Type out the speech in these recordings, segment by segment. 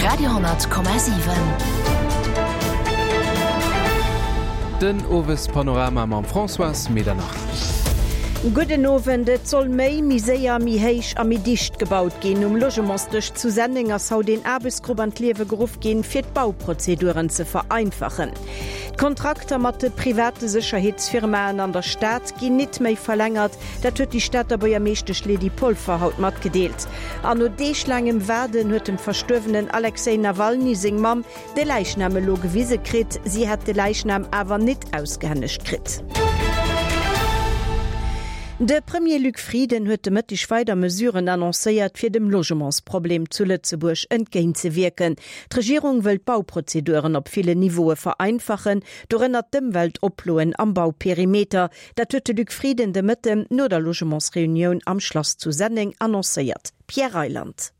Radio,7. Den Owespanorama mam Françoise Medernach. Gudden Owend. Et soll méi, méi séier, méi héich a méi dicht gebaut ginn. Um Logementsdësch zu Senneng ass haut een Aarbechtsgrupp an d'Liewe geruff ginn, fir d'Bauprozeduren ze vereinfachen. D'Kontrakter mat de private Sécherheetsfirmaen an der Stad ginn nit méi verlängert. Dat huet déi Stater Buergermeeschtesch Lydie Polfer haut matgedeelt. An no deeglaangem Waarden huet dem verstuerwenen Alexej Nawalny seng Mamm de Läichnam elo gewise kritt. Si hätt de Läichnam awer nit ausgehännegt kritt. De Premier Luc Frieden huet de Mëtteg weider Mesuren annoncéiert, fir dem Logementsproblem zu Lëtzebuerg entgéintzewierken. D'Regierung wëll d'Bauprozeduren op villen Niveaue vereinfachen, dorënner d'Ëmweltoploen am Bauperimeter. Dat huet de Luc Frieden de Mëtten no der Logementsreunioun am Schlass zu Senneng annoncéiert. Pierre Reyland.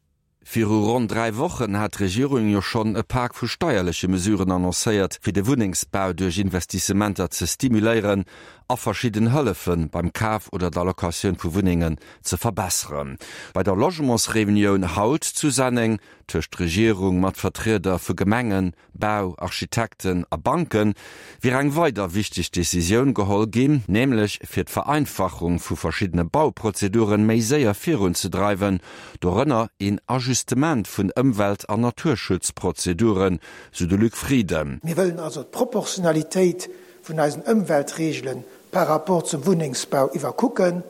Viru ronn 3 Wochen hat d'Regierung jo schonn e Pak vu steierleche Mesuren annoncéiert, fir de Wunnengsbau duerch Investissementer ze stimuléieren a verschidden Hëllefe beim Kaf oder der Locatioun vu Wunnengen ze verbesseren. Bei der Logementsreunioun haut zu Senneng tëscht Regierung mat Vertrieder vu Gemengen, Bau, Architekten a Banke wier eng weider wichteg Decisioun geholl ginn, nämlech fir d'Vereinfachung vu verschiddene Bauprozeduren méi séier virunzedreiwen, dorënner een Ajustement vun Ëmwelt an Naturschutzprozeduren, sou de Luc Frieden. Mir wëllen also d'Proportionalitéit vun eisen Ëmweltregele par rapport zum Wunnengsbau iwwerkucken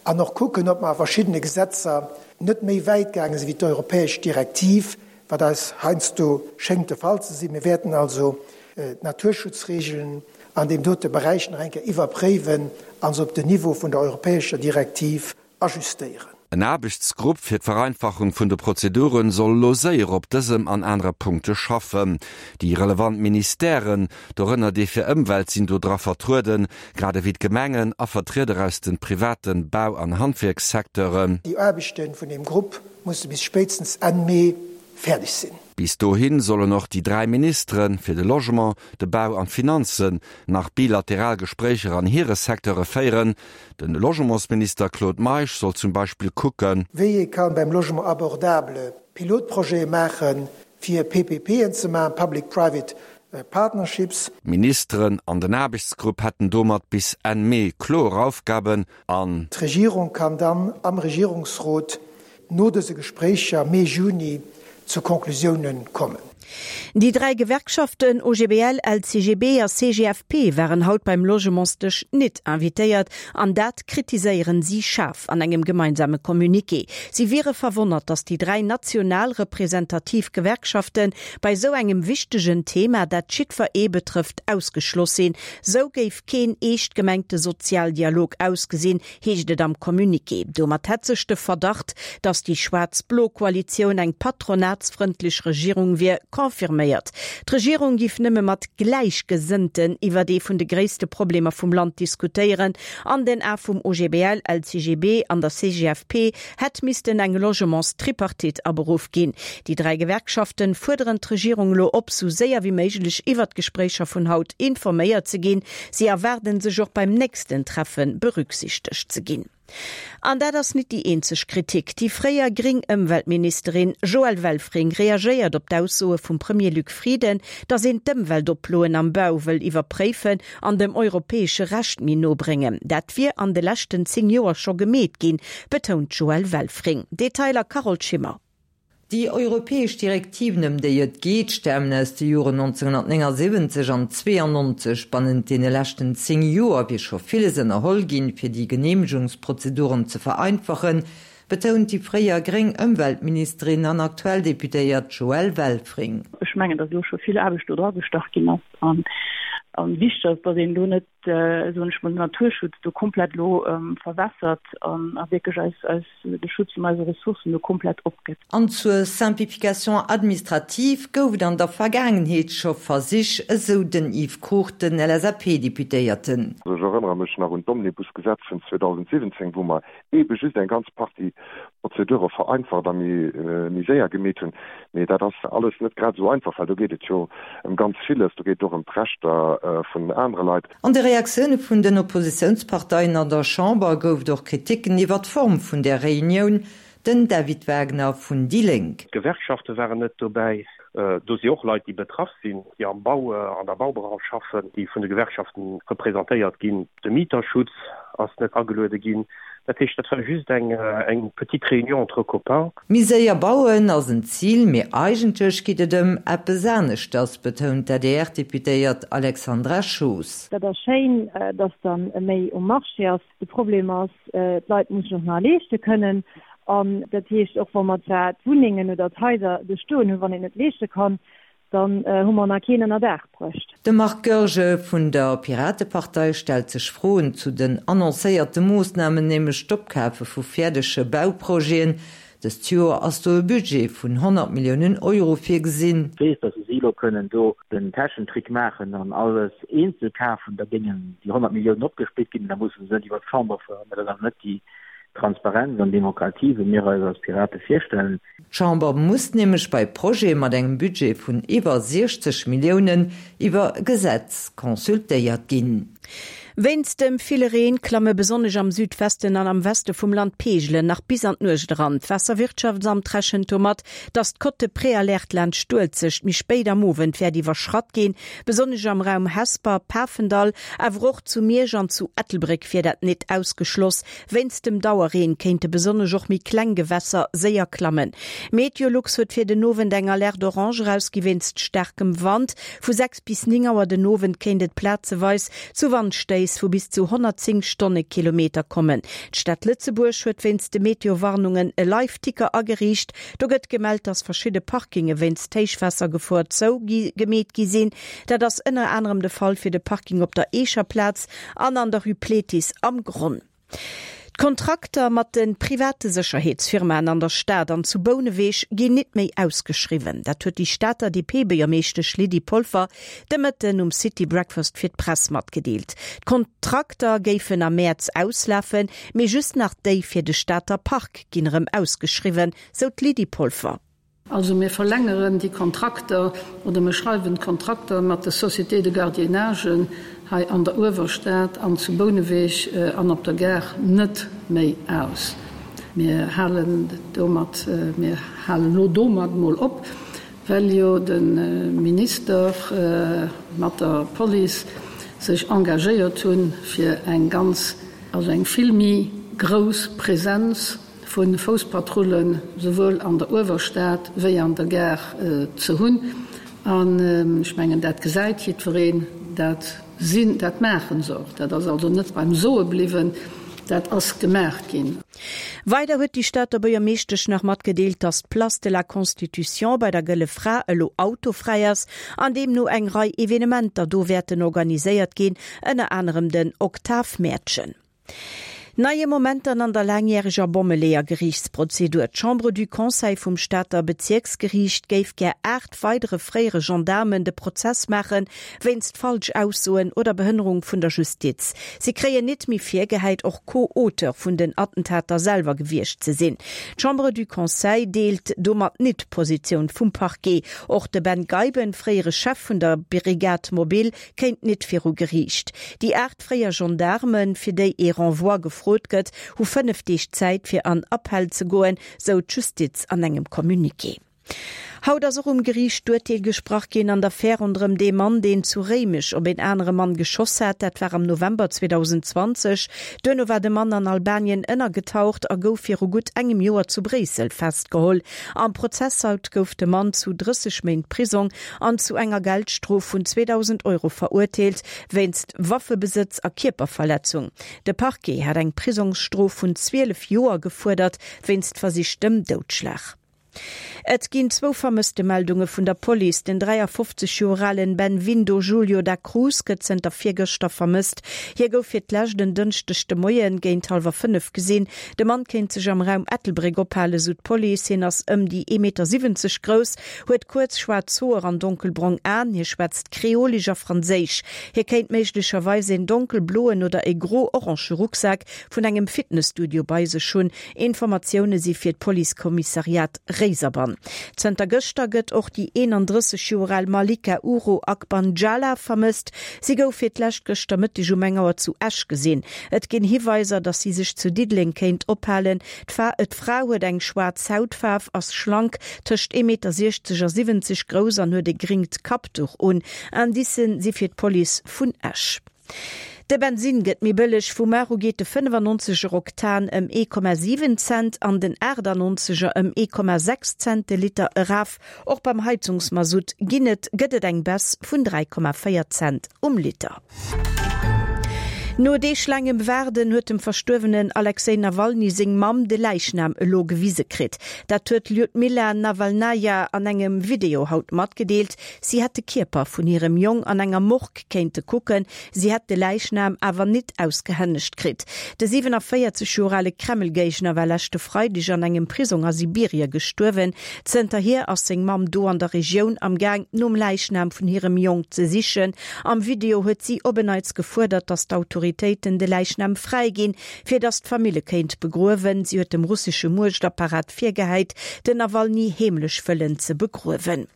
an och kucken, ob mer a verschiddene Gesetzer net méi wäit gaange sinn wéi d'europäesch Direktiv, wat eis heiansdo schéngt de Fall ze sinn. Mir wäerten also d'Naturschutzregeln an deem dote Beräich nach eng Kéier iwwerpréiwen a se op den Niveau vun der europäescher Direktiv ajustéieren. En Aarbechtsgrupp fir d'Vereinfachung vun de Prozedure soll elo séier op dësem an anere Punkte schaffen. Déi relevant Ministèren, dorënner dee fir Ëmwelt, sinn do dra vertrueden, grad ewéi d'Gemengen a Vertrieder aus de private Bau an Handwierkssecteuren. Déi Aarbechte vun deem Grupp musse bis spéitstens Enn Mee fäerdeg sinn. Bis dohi sollen och déi 3 Ministere fir de Logement, de Bau an d'Finanzen nach bilateral Gespréicher an hire Secteure féieren. De Logementsminister Claude Meisch soll zum Beispill kucken. Wéi ee ka beim Logement abordable Pilotprojete maachen, fir PPPen ze maachen, Public Private Partnerships. D'Ministeren an den Aarbechtsgrupp hätten domat bis Enn Mee kloer Aufgaben an. D'Regierung kann dann am Regierungsrot no dëse Gespréicher Mee, Juni zu Conclusiounen kommen. Déi 3 Gewerkschaften OGBL, LCGB a CGFP waren haut beim Logementsdësch nit invitéiert an dat kritiséieren si schaarf an engem gemeinsame Communiqué. Si wiere verwonnert, datt déi 3 national representativ Gewerkschafte bei esou engem wichtegen Thema, dat jiddwer ee betrëfft, ausgeschloss sinn. Sou géif keen eescht gemengte Sozialdialog ausgesinn, heescht et am Communiqué. Domat hätt sech de Verdacht, datt déi schwaarz-blo Koalitioun eng patronatsfrëndlech Regierung wier, confirméiert. D'Regierung giff nëmme mat Gläichgesënnten iwwert ee vun de gréisste Problemer vum Land diskutéieren. An den Ae vum OGBL, LCGB an der CGFP hätt missten eng Logements-Tripartite aberuff ginn. Déi 3 Gewerkschaften fuerderen d'Regierung elo op, sou séier wéi méiglech iwwert d'Gespréicher vun haut informéiert ze ginn. Si erwaarden sech och beim nächsten Treffe berücksichtegt ze ginn. An dat ass nit déi eenzeg Kritik. Déi fréier gréng Ëmweltministerin Joëlle Welfring reagéiert op d'Aussoe vum Premier Luc Frieden, datt een d'Ëmweltoploen am Bau wëll iwwerpréifen an dem europäesche Recht méi no bréngen. Dat wier an de leschten 10 Joer scho gemeet ginn, betount d'Joëlle Welfring. Detailer Carole Schimmer. Déi europäesch Direktiven, ëm déi et geet, stamen aus de Joren 1979 an 92. Bannent deene leschten 10 Joer wier scho villes ënnerholl ginn, fir déi Geneemegungsprozeduren ze vereinfachen, betount déi fréier gréng Ëmweltministerin an aktuell Deputéiert Joëlle Welfring. Ech mengen, datt elo scho vill Aarbecht do dragestach ginn ass an wichteg ass, datt een elo net, soen ech mol, den Naturschutz do komplett elo verwässert an a wierklech eis, eis, de Schutz vun eise Ressourcen do komplett opgëtt. An zur Simplification administrative gouf et an der Vergaangenheet scho Versich, esou den Yves Cruchten, LSAP-Deputéierten. Ech erënnere mech nach un d'Omnibusgesetz vun 2017, wou mer eebe just eng ganz Partie Prozedure vereinfacht a méi séier gemeet hunn. Mee dat ass alles net grad esou einfach, well do geet et jo ëm ganz villes. Do geet et och ëm d'Rechter vun anere Leit. An de Reaktioune vun den Oppositiounsparteien an der Chamber gouf et och Kriticken iwwer d'Form vun där Reunioun. Den David Wagner vun déi Lénk. D'Gewerkschafte waren net dobäi. Do si och Leit, déi betraff sinn, déi am Bau, an der Baubranche schaffen, déi vun de Gewerkschaften representéiert ginn. De Mieterschutz ass net ageluede ginn. Dat heescht, dat war just eng eng petite réunion entre copains. Méi séier bauen ass en Zil, mee eigentlech geet et ëm eppes aneschters, betount d'ADR-Deputéiert Alexandra Schoos. Dat ass schéin, dass dann méi um Marché ass. De Problem ass, d'Leit mussen och nach leeschte kënnen. An dat heescht, och wa mer zwar d'Wunnengen oder d'Haiser do stoen hunn, wann een et leeschte kann, Dann hu mer nach keen ënner Daach bruecht. De Marc Goergen vun der Piratepartei stellt sech Froen zu den annoncéierte Moossnamen, nämlech d'Opkafe vu fäerdege Bauprojeten. Dëst Joer ass do e Budget vun 100 Milliounen Euro virgesinn. Weess, datt si elo kënnen do den Täschentrick maachen an alles eenzel kafen, da géingen déi 100 Milliounen opgesplitt ginn an da musse se net iwwer d'Chamber fueren. Mä dat ass awer net déi Transparenz an Demokratie, wéi mir eis als Pirate virstellen. D'Chamber muss nämlech bei Projete mat engem Budget vun iwwer 60 Milliounen iwwer e Gesetz consultéiert ginn. Wéinst dem ville Reen klamme besonnesch am Südwesten an am Weste vum Land d'Peegelen nach bis an d'Nuecht eran. D'Waasserwirtschaftsamt rechent domat, dass d'Cote de Préalerte laanscht d'Uelzecht méi spéit am Owend wäert iwwerschratt ginn. Besonnesch am Raum Hesper, Pafendall, awer och zu Miersch an zu Ettelbréck wier dat nit ausgeschloss. Wéinst dem Dauerreen kéinte besonnesch och méi kleng Gewässer séier klammen. Meteolux huet fir den Owend eng Alerte orange erausgi wéinst staarkem Wand. Vu 6 bis 9 Auer den Owend kéint et plazeweis zu Wandstéiss vu bis zu 110 Stonnekilometer kommen. D'Stad Lëtzebuerg huet wéinst de Meteo-Warnungen e Live-Ticker ageriicht. Do gëtt gemellt, dass verschidde Parkinge wéinst Héichwaassergefor zou gemeet gi sinn. Dat ass ënner anerem de Fall fir de Parking op der Eecher Plaz an an der Rue Pléthis am Gronn. D'Kontrakter mat de private Sécherheetsfirmaen an der Stad an zu Bouneweg ginn nit méi ausgeschriwwen. Dat huet déi Stater DP-Buergermeeschtesch Lydie Polfer de Mëtten um City Breakfast fir d'Press matgedeelt. D'Kontrakter géifen am Mäerz auslafen, mee just nach déi fir de Stater Park ginn erëm ausgeschriwwen, sou d'Lydie Polfer. Also mir verlängeren déi Kontrakter oder mir schreiwen d'Kontrakter mat de Sociétés de gardiennage hei an der Uewerstad an zu Bouneweg an op der Gare net méi aus. Mir halen domat, mir halen elo domat emol op, well jo de Minister mat der Police sech engagéiert hunn, fir eng ganz, also eng vill méi grouss Präsenz vu Fousspatrullen souwuel an der Uewerstad wéi an der Gare ze hunn. An ech mengen, dat gesäit jiddwereen, dat sinn, dat maache se och. Dat ass also net beim Soe bliwwen, dat ass gemaach ginn. Weider huet déi Stater Buergermeeschtesch nach matgedeelt, datt d'Place de la Constitution bei der Gëlle Fra elo autofräi ass an deemno eng Rei Evenementer do wäerten organiséiert ginn, ënner anerem den Oktavmäertchen. Neie Momenter an der laangjäreger Bommeleeër-Geriichtsprozedur. D'Chambre du Conseil vum Stater Bezierksgeriicht géif gär 8 weidere fréiere Gendaarmen de Prozess maache wéinst Falschaussoen oder Behënnerung vun der Justiz. Si kréien nit méi virgehäit, och Co-Auteur vun den Attentater selwer gewiescht ze sinn. D'Chambre du Conseil deelt domat nit d'Positioun vum Parquet. Och de Ben Geiben, fréiere Chef vun der Brigade mobile, kéint nit viru Geriicht. Déi 8 fréier Gendaarmen, fir déi ee Renvoi gefrot gëtt, hu 5 Deeg Zäit fir an Appell ze goen, sou d'Justiz an engem Communiqué. Haut ass och um Geriicht d'Urteel gesprach ginn an der Affär ronderëm dee Mann, deen zu Réimech op een anere Mann geschoss hat. Dat war am November 2020. Duerno war de Mann an Albanien ënnergetaucht a gouf viru gutt engem Joer zu Bréissel festgeholl. Am Prozess haut gouf de Mann zu 30 Méint Prisong an zu enger Geldstrof vun 2.000 Euro verurteelt wéinst Waffebesëtz a Kierperverletzung. De Parquet hat eng Prisongsstrof vun 12 Joer gefuerdert wéinst versichtem Doudschlag. Et ginn zwou Vermësstemeldunge vun der Police. Den 53 Joer alen Benvindo Julio da Cruz gëtt zënter virgëschter vermësst. Hie gouf fir d'lescht en Dënschdeg de Moien géint hallwer 5 gesinn. De Mann kéint sech am Raum Ettelbréck ophalen, sou d'Police. Hien ass ëm déi 1,70 Meter grouss, huet kuerz schwaarz Hoer an donkelbrong Aen. Hie schwätzt Kreolesch a Franséisch. Hie kéint méiglecherweis een donkelbloen oder e gro-orange Rucksak vun engem Fitnesstudio bei sech hunn. Informatioune si fir d'Policekommissariat Réiserbann. Zënter gëschter gëtt och déi 31 Joer al Malika Uro Akbanjala vermësst. Si gouf fir d'lescht gëschter Mëtteg um eng Auer zu Esch gesinn. Et ginn Hiweiser, datt si sech zu Diddeleng kéint ophalen. D'Fra huet eng schwaarz Hautfaarf, ass schlank, tëscht 1,60 Meter a 70 grouss an huet e gringt Kappduch un. Indicen si fir d'Police vun Esch. De Bensinn gëtt méi bëlleg, Vu mar u geet de 95 er Oktan ëm 1,7 Cent an den 98 er ëm 1,6 Cent de Liter eraf. Och beim Heizungsmasutt ginn et gëtt et eng Baisse vun 3,4 Cent um Liter. No deeglaangem Waarden huet dem verstuerwenen Alexej Nawalny seng Mamm de Läichnam elo gewise kritt. Dat huet d'Ljudmila Nawalnaja an engem Video haut matgedeelt. Si hätt de Kierper vun hirem Jong an enger Morgue kéinte kucken, si hätt de Läichnam awer nit ausgehännegt kritt. De 47 Joer ale Kreml-Géigner war leschte Freideg an engem Prisong a Sibirie gestuerwen. Zënterhier ass seng Mamm do an der Regioun am Gaang, nom Läichnam vun hirem Jong ze sichen. Am Video huet si op en Neits gefuerdert, datt d'Autoritéiten de Läichnam fräiginn, fir datt d'Famill e kéint begruewen. Si huet dem russesche Muechtapparat virgehäit, den Nawalny heemlech wëllen ze begruewen.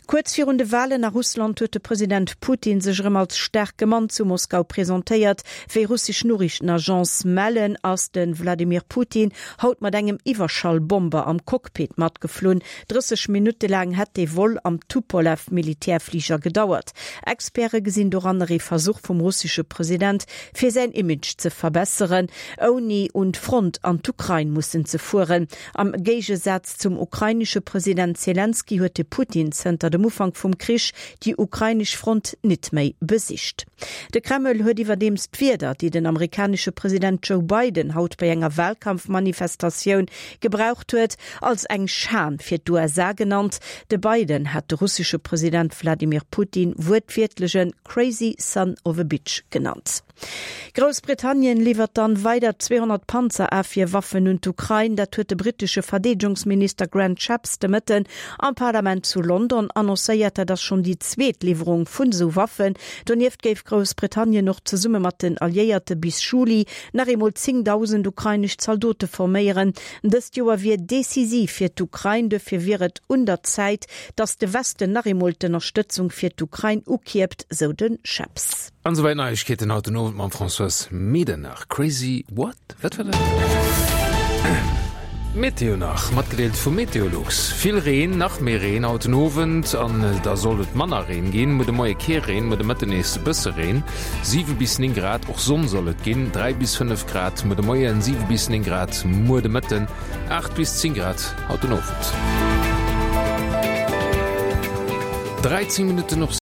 Kuerz virun de Walen a Russland huet de President Putin sech erëm als staarke Mann zu Moskau presentéiert. Wéi russesch Noriichtenagence mellen, ass de Wladimir Putin haut mat engem Iwwerschallbomber am Cockpit matgeflunn. 30 Minutte laang hätt dee Vol am Tupolew-Militärfliger gedauert. Experte gesinn doranner ee Versuch vum russesche President, fir säin Image ze verbesseren, ouni un d'Front an d'Ukrain mussen ze fueren. Am Géigesaz Zum ukrainesche President Selenskyj huet de Putin zënter dem Ufank vum Krich déi ukrainesch Front nit méi besicht. De Kreml huet iwwerdeems d'Wierder, déi den amerikanesche President Joe Biden haut bei enger Walkampfmanifestatioun gebraucht huet, als eng Schan fir d'USA genannt. De Biden hat de russesche President Wladimir Putin wuertwiertlech e crazy son of a bitch genannt. Groussbritannien liwwert dann weider 200 Panzerafwierwaffen un d'Ukrain. Dat huet de brittesche Verdeedegungsminister Grant Shapps de Mëtten am Parlament zu London annoncéiert. Dat ass schonn déi zweet Liwwerung vun esou Waffen. Donieft géif Groussbritannien och zesumme mat den Alliéierte bis Juli nach eemol 10.000 ukrainesch Zaldote forméieren. Dëst Joer wier decisiv fir d'Ukrain. Dofir wier et un der Zäit, datt de Westen nach eemol d'Ënnerstëtzung fir d'Ukrain ukierpt, sou de Shapps. An esouwäit Neiegkeeten haut den Owend mam Françoise Medernach. Crazy what? Wat war dat? Meteo nach, matgedeelt vu Meteolux. Vill Reen, nach méi Reen haut den Owend an da sollt et manner Reen ginn. Muer de Moie kee Reen, muer de Mëtten nees e bësse Reen, 7 bis 9 Grad. Och Sonn soll et ginn, 3 bis 5 Grad muer de Moien, 7 bis 9 Grad muer de Mëtten, 8 bis 10 Grad haut den Owend. 13 Minutten op.